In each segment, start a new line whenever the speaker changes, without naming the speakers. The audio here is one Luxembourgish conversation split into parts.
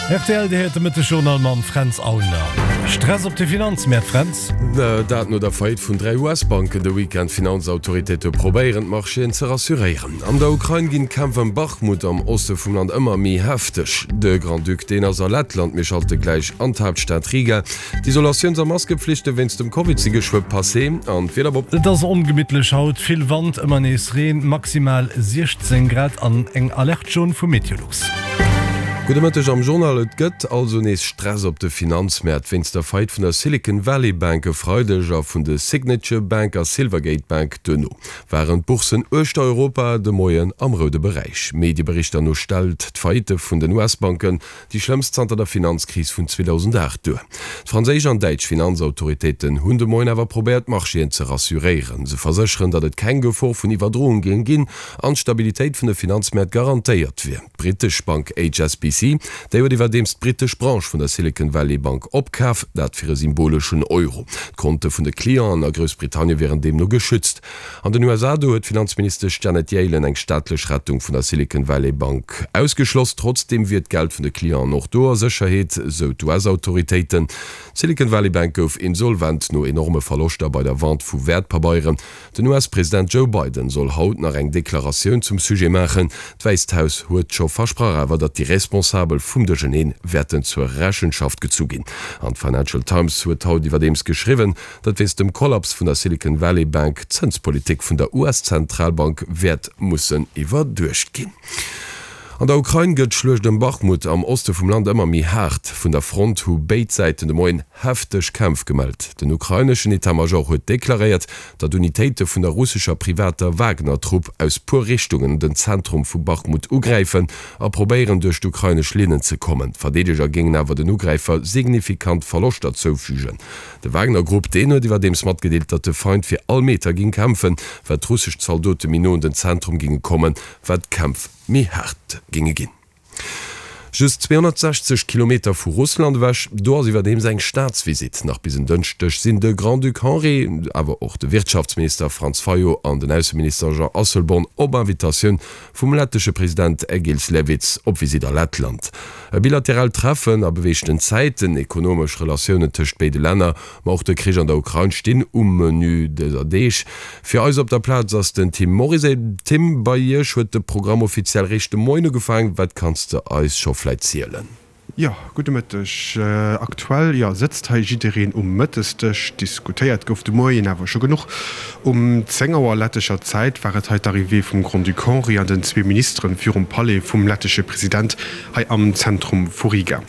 Rtl, Dir héiert de Mëttesjournal mam Fränz Aulner. Stress op de Finanzmäert, Fränz?
Dat no der Faillite vun 3 US-Banken de Weekend. D'Finanzautoritéite probéieren, d'Marchéen ze rassuréieren. An der Ukrain ginn d'Kämpf ëm Bachmut am Oste vum Land ëmmer méi hefteg. De Grand-Duc, deen ass a Lettland. Mir schalte gläich an d'Haaptstad Riga. D'Isolatiouns a Maskepflichte wéinst dem Covid si geschwë passé an d'Wieder
op. Et ass ongemittlech haut, vill Wand, ëmmer nees Reen, maximal 16 Grad an eng Alerte jaune vu Meteolux.
Gudde Mëtteg am Journal. Et gëtt also nees Stress op de Finanzmäert wéinst der Faillite vun der Silicon Valley Bank e Freideg a vun de Signature Bank a Silvergate Bank. Duerno waren d'Bourssen uechter Europa de Moien am roude Beräich. Medieberichter no stellt d'Faillite vun den US-Banken Déi schlëmmst zanter der Finanzkris vun 2008 duer. D'franséisch an däitsch Finanzautoritéiten hunn de Moien awer probéiert d'Marchéen ze rassuréieren. Se versécheren, datt et keng Gefor vun Iwwerdroung géing ginn an d'Stabilitéit vun de Finanzmäert garantéiert wier. D'brittesch Bank HSBC, déi huet iwwerdeems d'brittesch Branche vun der Silicon Valley Bank opkaf, dat fir e symboleschen Euro. D'Konte vun de Clienten a Groussbritannien wieren deemno geschützt. An den USA do huet d'Finanzministesch Janet Yellen eng staatlech Rettung vun der Silicon Valley Bank ausgeschloss. Trotzdeem wier d'Geld vun de Clienten och do a Sécherheet, sou d'US-Autoritéiten. D'Silicon Valley Bank gouf insolvent no enorme Verloschter bei der Vente vu Wäertpabeieren. Den US-President Joe Biden soll haut nach eng Deklaratioun zum Sujet maachen. D'Wäisst Haus huet scho versprach awer, datt déi Responsabel vum Duercherneen wäerten zur Rechenschaft gezu ginn. An d'Financial Times huet haut iwwerdeems geschriwwen, datt wéinst dem Kollaps vun der Silicon Valley Bank d'Zënspolitik vun der US-Zentralbank wäert mussen iwwerduecht ginn. An der Ukrain gëtt d'Schluecht ëm Bachmut am Oste vum Land ëmmer méi haart. Vun der Front hu béid Säiten de Moien hefteg Kämpf gemellt. Den ukraineschen Etat-Major huet deklaréiert, datt Unitéite vun der russescher privater Wagner-Trupp aus puer Richtungen den Zentrum vu Bachmut ugräifen a probéieren duerch d'ukrainesch Linnen ze kommen. D'Verdeedeger géingen awer den Ugräifer signifikant Verloschter zoufügen. De Wagner-Grupp, deen huet iwwerdeems matgedeelt, datt de Feind fir all Meter géing kämpfen. Wat d'russesch Zaldote méi no un den Zentrum géinge kommen, wat d'Kämpf méi haart géinge ginn. Just 260 Kilometer vu Russland ewech, do ass iwwerdeems eng Staatsvisitt. Nach bis en Dënschdeg sinn de Grand-Duc Henri, awer och de Wirtschaftsminister Franz Fayot an den Ausseminister Jean Asselborn op Invitatioun vum lettesche President Egils Levits op Visitt a Lettland. E bilateraalt Treffen a beweegten Zäiten, ekonomesch Relatiounen tëscht béide Länner, ma och de Krich an der Ukrain stinn um Menü dëser Deeg. Fir eis op der Plaz ass den Tim Morizet. Tim, bei Iech huet de Programm offiziell réischt de Moien ugefaangen. Wat kanns de eis scho vläit zielen?
Jo, gudde Mëtteg. Aktuell, jo, sëtzt hei jiddereen um Mëttesdësch. Diskutéiert gouf de Moien awer scho genuch. Um 10 Auer lettescher Zäit war et hei d'Arrivée vum Grand-Duc Henri an den zwee Ministeren virum Palais vum lettesche President hei am Zentrum vu Riga.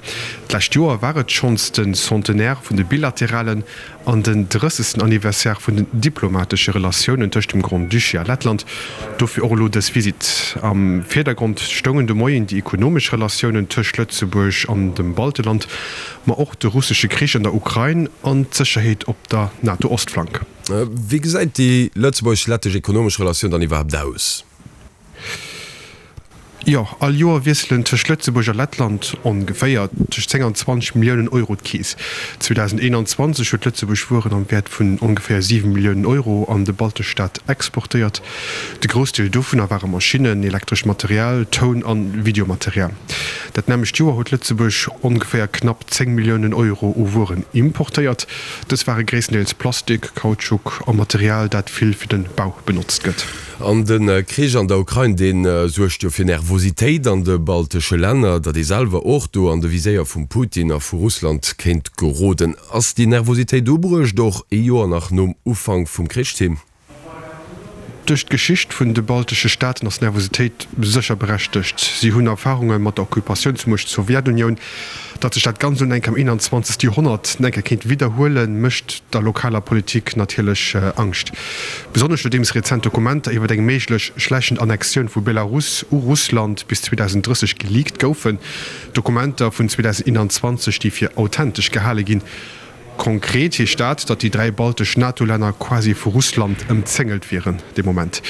D'lescht Joer war et schonns de Centenaire vun de bilateralen an den drëssegsten Anniversaire vun den diplomatesche Relatiounen tëscht dem Grand-Duché a Lettland. Dofir och elo dës Visitt. Am Virdergrond stoungen de Moien déi ekonomesch Relatiounen tëscht Lëtzebuerg an dem Balteland, ma och de russesche Krich an der Ukrain an d'Sécherheet op der NATO-Ostflank.
Wéi gesäit déi lëtzebuergesch-lettesch ekonomesch Relatioun dann iwwerhaapt aus?
Jo, all Joer wiesselen tëscht Lëtzebuerg a Lettland ongeféier tëscht 10 an 20 Milliounen Euro d'Keess. 2021 huet Lëtzebuerg Wueren am Wäert vun ongeféier 7 Milliounen Euro an de baltesch Staat exportéiert. De Groussdeel dovunner ware Maschinnen, elektrescht Material, Toun an Videomaterial. Dat nämmlecht Joer huet Lëtzebuerg ongeféier knapp 10 Milliounen Euro u Wueren importéiert. Dës ware gréisstendeels Plastik, Kautschuk a Material, dat vill fir de Bau benotzt gëtt.
An de Krich an der Ukrain, dee suergt jo fir Nervositéit an de baltesche Länner, datt ee selwer och do an de Viséier vum Putin a vu Russland kéint geroden. Ass déi Nervositéit ubruecht, och ee Joer nach nom Ufank vum Krich, Tim?
Duerch d'Geschicht vun de baltesche Staaten ass d'Nervositéit sécher berechtegt. Si hunn Erfarunge mat der Occupatiounsmuecht Sowjetunioun. Datt sech dat Ganzt un enk am 21. Joerhonnert enke kéint widderhuelen, mécht der lokaler Politik natierlech Angscht. Besonnesch nodeems rezent Dokumenter iwwer eng méiglech schläichend Annexioun vu Belarus u Russland bis 2030 geleakt goufen, Dokumenter vun 2021, déi fir authentesch gehale ginn. Konkret heescht dat, datt déi 3 baltesch NATO-Länner quasi vu Russland ëmzéngelt wieren de Moment.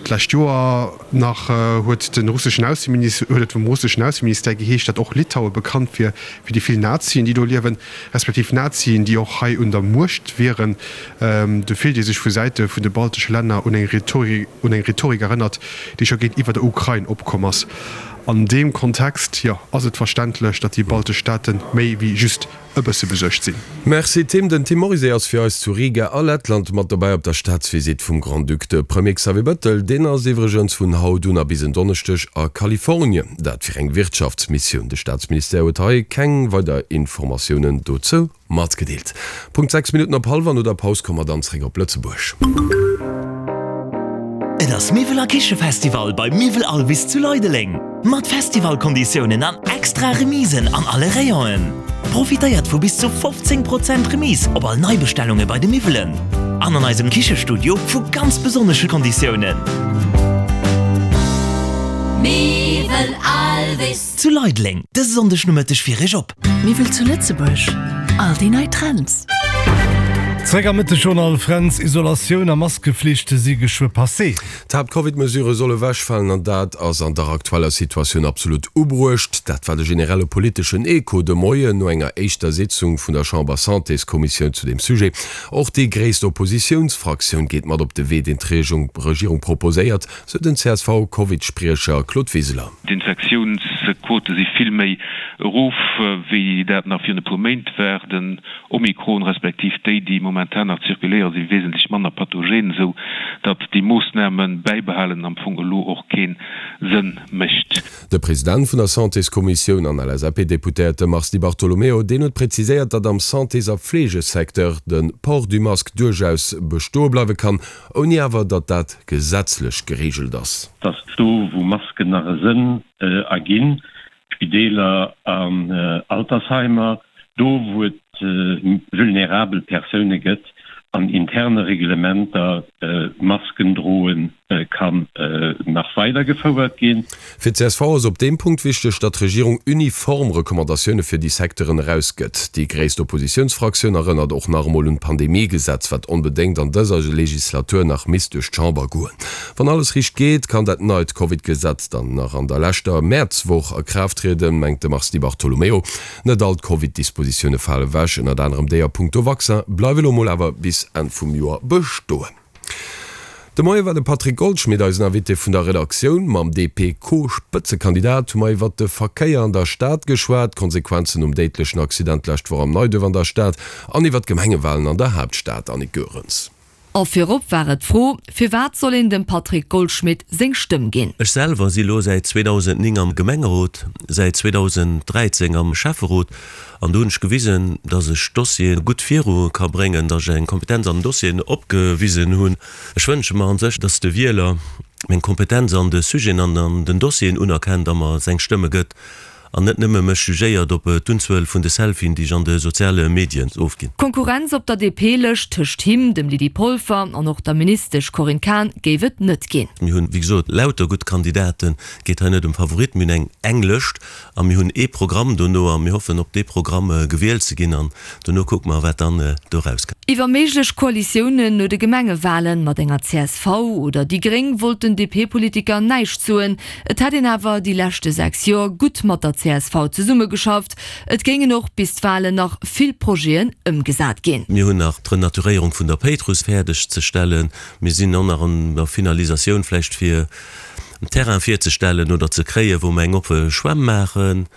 D'lescht Joer nach huet de russeschen Ausseminister huet et vum russeschen Ausseministère geheescht, datt och Litaue bekannt wier fir déi vill Nazien, déi do liewen, respektiv Nazien, déi och hei un der Muecht wieren. Do fillt ee sech vu Säite vun de baltesche Länner un eng Rhetorik un eng Rhetorik erënnert, déi scho géintiwwer der Ukrain opkomm ass. An deem Kontext, jo, ass et verständlech, datt déi baltesch Staate méi wéi just e bësse besuergt sinn.
Merci Tim. Den Tim Morizet ass fir eis zu Riga a Lettland mat dobäi op der Staatsvisitt vum Grand-Duc. De Premier Xavier Bettel, deen ass iwwregens vun haut un a bis en Donneschdeg a Kalifornien. Dat fir eng Wirtschaftsmissioun. De Staatsministère huet hei keng weider Informatiounen dozou Matgedeelt. Punkt 6 Minutten op hallwer. No der Paus komme mer dann zréck op Lëtzebuerg.
Et ass Miwwel a Kichefestival bei Miwwel Alvis zu Leideleng! Mat Festivalkonditiounen an extra Remisen an alle Rayonen. Profitéiert vu bis zu 15 Prozent Remise op all Neibestellunge bei de Miwwelen an an eisem Kichestudio vu ganz besonnesche Konditiounen. Miwwel Alvis zu Leideleng dëse Sonndeg Nomëtteg fir Iech op.
Miwwel zu Lëtzebuerg, all déi nei Trends.
Zréck am Mëttegjournal, Fränz, Isolatioun a Maskeflicht si geschwë passé.
D'Haapt-Covid-Mesurë solle wechfalen an dat ass an der aktueller Situatioun absolut ubruecht. Dat war de generelle politeschen Echo de Moien no enger éischter Sitzung vun der Chamber-Santéskommissioun zu deem Sujet. Och déi gréisst Oppositiounsfraktioun geet mat op de Wee, deen d'Regierung proposéiert, sou den CSV-Covid-Spriecher Claude Wiseler.
D'Infektiounsquote si vill méi erof, wéi dat nach virun e puer Méint war. Den Omikron, respektiv déi, déi momentan nach zirkuléieren, si wesentlech manner pathogen, esou datt déi Moossname bäibehalen am Fong elo och kee Sënn mécht.
De President vun der Santéskommissioun an LSAP-Deputéierte Mars Di Bartolomeo, deen huet präziséiert, datt am Santés a Fleegesecteur de Port du masque duerchaus bestoe bleiwe kann, ouni awer datt dat gesetzlech gereegelt ass.
Dass do wou Masken nach e Sënn erginn, Spideeler an Altersheimer, do wou et vulnerabel Persoune gëtt, an interne Reglementer Masken droe kann nach weider gefouert ginn.
Fir d'CSV ass op deem Punkt wichteg, datt d'Regierung uniform Recommandatioune fir déi Secteuren erausgëtt. Déi gréisst Oppositiounsfraktioun erënnert och nach emol un d'Pandemiegesetz, wat onbedéngt an dëser Legislatur nach misst duerch d'Chamber goen. Wann alles riicht geet, kann dat neit Covid-Gesetz dann nach an der leschter Mäerzwoch a Kraaft trieden, mengt de Mars Di Bartolomeo. Net all d'Covid-Dispositioune fale ewech, ënnert anerem déi a punkto Vaccin bleiwe lo mol awer bis Enn vum Joer bestoen. De Moie war de Patrick Goldschmidt eisen Invité vun der Redaktioun. Mam DP-Co-Spëtzekandidat hu mer iwwert de Verkéier an der Stad geschwat, d'Konsequenzen nom déidlechen Accident d'lescht Woch am Neiduerf an der Stad an iwwert d'Gemengewalen an der Haaptstad. Annick Goerens.
A virop war et d'Fro, Firwat soll een dem Patrick Goldschmidt seng Stëmm ginn?
Ech selwer si lo säit 2009 am Gemengerot, säit 2013 am Schäfferot An do hunn ech gewisen, dass ech Dossiere gutt viru ka bréngen, dass ech eng Kompetenz an den Dossieren opgewisen hunn. Ech wënsche mer an sech, dass de Wieler meng Kompetenz an de Sujeten an an den Dossieren unerkennt a mer seng Stëmme gëtt an net nëmme mech jugéiert op d'Unzuel vun de Selfien, déi ech an de soziale Medien ofginn.
Konkurrenz op der DP-Lëscht tëscht him, dem Lydie Polfer an och der Ministesch Corinne Cahen géif et net ginn.
Mir hunn, wéi gesot, lauter gutt Kandidaten. Et geet hei net ëm Favoritten. Mir hunn eng eng Lëscht A mir hunn ee Programm dono a mir hoffen op dee Programm gewielt ze ginn an dono kucke mer, wat dann do erauskënnt.
Iwwer méiglech Koalitiounen no de Gemengewalen mat enger csv oder déi Gréng wollt den DP-Politiker näischt soen. Et hätt een awer déi leschte 6 Joer gutt mat der csv zesummegeschafft. Et géingen och bis d'Walen nach vill Projeten ëmgesat ginn.
Mir hunn nach d'Renaturéierung vun der Péitruss fäerdeg ze stellen. Mir sinn och nach an der Finalisatioun vläicht fir en Terrain virzestellen oder ze kréien, wou mer eng oppe Schwämm maachen.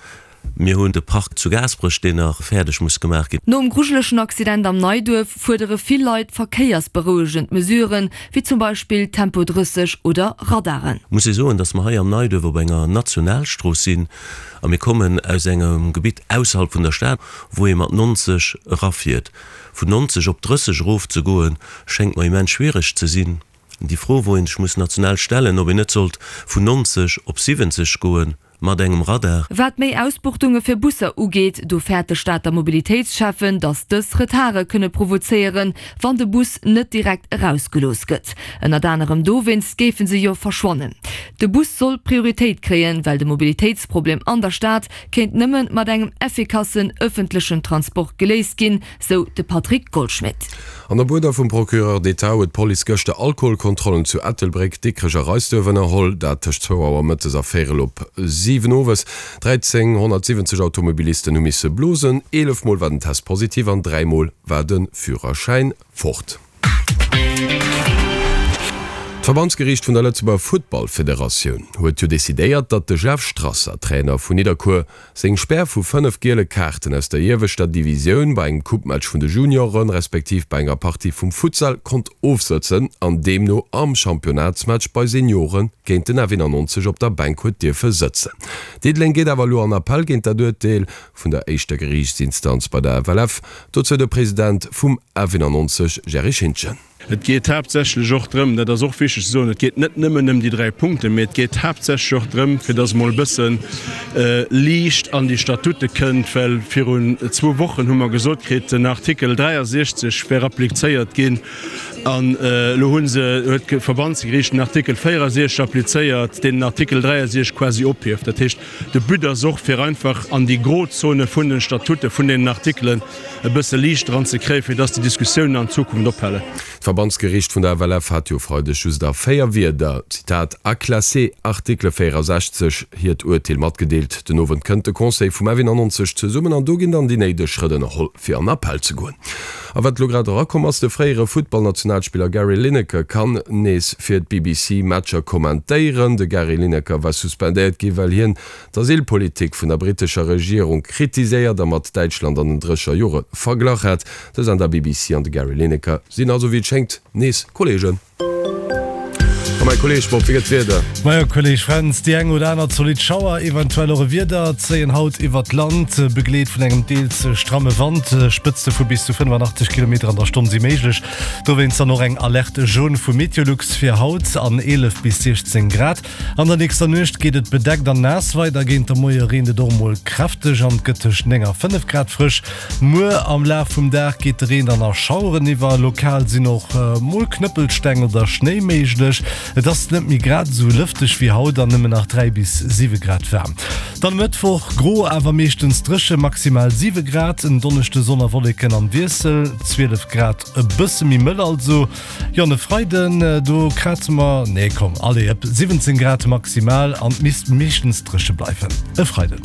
Mir hunn de Park zu Gaasperech, deen nach fäerdeg muss gemaach ginn.
Nom grujelegen Accident am Neiduerf fuerdere vill Leit verkéiersberouegend Mesuren, wéi zum Beispill Tempo 30 oder Radaren.
Muss ee soen, dass mer hei am Neiduerf op enger Nationalstrooss sinn a mir kommen aus engem Gebitt ausserhalb vun der Stad, wou ee mat 90 erafiert. Vun 90 op 30 erofzegoen, schéngt mer immens schwiereg ze sinn. Déi Fro, wou ee sech muss national stellen, ob een net sollt vun 90 op 70 goe mat engem Radar.
Wat méi Ausbuchtunge fir Busser ugeet, do fäert de Stater Mobilitéitsschäffen, datt dës Retarde kënne provozéieren, wann de Bus net direkt erausgelooss gëtt. Ënnert anerem dowéinst géife se jo verschwannen. De Bus soll Prioritéit kréien, well de Mobilitéitsproblem an der Stad kéint nëmme mat engem effikassen ëffentlechen Transport geléist ginn, sou de Patrick Goldschmidt.
An op Uerder vum Procureur d'État huet d'Police gëschter Alkoholkontrollen zu Ettelbréck, Dikrech a Reisduerf ënnerholl. Dat tëscht zwou Auer mëttes a véierel op 7 owes. 1.370 Automobilisten hu misse blosen. 11 Mol war den Test positiv an 3 Mol war de Führerschäin fort. D'Verbandsgeriicht vun der Lëtzebuerger Futtballfederatioun huet jo decidéiert, datt de Jeff Strasser, Trainer vun Nidderkuer, seng Spär vu 5 giele Kaarten aus der ieweschter Divisioun bei engem Coupematch vun de Junioren, respektiv bei enger Partie vum Futsal konnt ofsëtzen an deemno am Championnatsmatch bei Seniore géint den F91 op der Bänk huet dierfe sëtzen. Diddeleng geet awer elo an Appell géint dat Urteel vun der éischter Geriichtsinstanz bei der FLF. Dozou de President vum F91 Jerry Schintgen.
Et geet haaptsächlech och drëm, dat ass och wichteg ze soen, et geet net nëmmen ëm déi 3 Punkten, mee et geet haaptsächlech och drëm, fir dass emol e bësse Liicht an déi Statute kënnt, well virun zwou Wochen hu mer gesot kritt, den Artikel 63 wär applizéiert ginn an elo hu se, huet d'Verbandsgeriicht den Artikel 64 applizéiert, deen den Artikel 63 quasi ophieft. Dat heescht, de But ass och, fir einfach an déi Grozone vun den Statute vun deenen Artikelen e bësse Liicht dran ze kréien, fir dass déi Diskussiounen an Zukunft ophalen.
D'Verbandsgeriicht vun der FLF hat jo e Freideg just a 4 Wierder, Zitat, à classer article 64, hiert Urteel matgedeelt. Den Owend kënnt de Conseil vum F91 zesummen an do ginn dann déi néideg Schrëtt ënnerholl, fir an Appell ze goen. A wat elo grad erakomm ass, de fréiere Futtballnationalspiller Gary Lineker kann nees fir d'BBC Matcher kommentéieren. De Gary Lineker war suspendéiert gi well hien d'Asylpolitik vun der brittescher Regierung kritiséiert a mat Däitschland an den Drécher Jore verglach hat. De Sender BBC an de Gary Lineker sinn also wéi et schéngt nees Kolleegen. A mäi Kolleeg Bob, wéi gëtt d'Wieder?
Majo Kolleeg Fränz, déi eng oder aner zolidd Schauer, eventuell och e Wieder zéien haut iwwert d'Land, begleet vun engem deels stramme Wand. Spëtzte vu bis zu 85 Kilometer an der Stonn si méiglech. Dowéinst dann och eng Alerte jaune vu Meteolux fir haut an 11 bis 16 Grad. An der nächster Nuecht geet et bedeckt an naass weider, géint de Moie reent et och mol kräfteg an et gëtt tëscht 9 a 5 Grad frësch. Muer am Laf vum Dag geet de Reen dann a Schaueren iwwer, lokal sinn och mol Knëppelsteng oder Schnéi méiglech. Et ass net méi grad esou lëfteg wéi haut an nëmmen nach 3 bis 7 Grad waarm. Dann e Mëttwoch gro awer meeschtens dréche, maximal 7 Grad, en Donneschde Sonn a Wolleken am Wiessel, 12 Grad, e bësse méi mëll also. Jo an e Freiden do kraze mer, nee komm allez, ep 17 Grad maximal an et misst meeschtens dréche bleiwen e Freiden.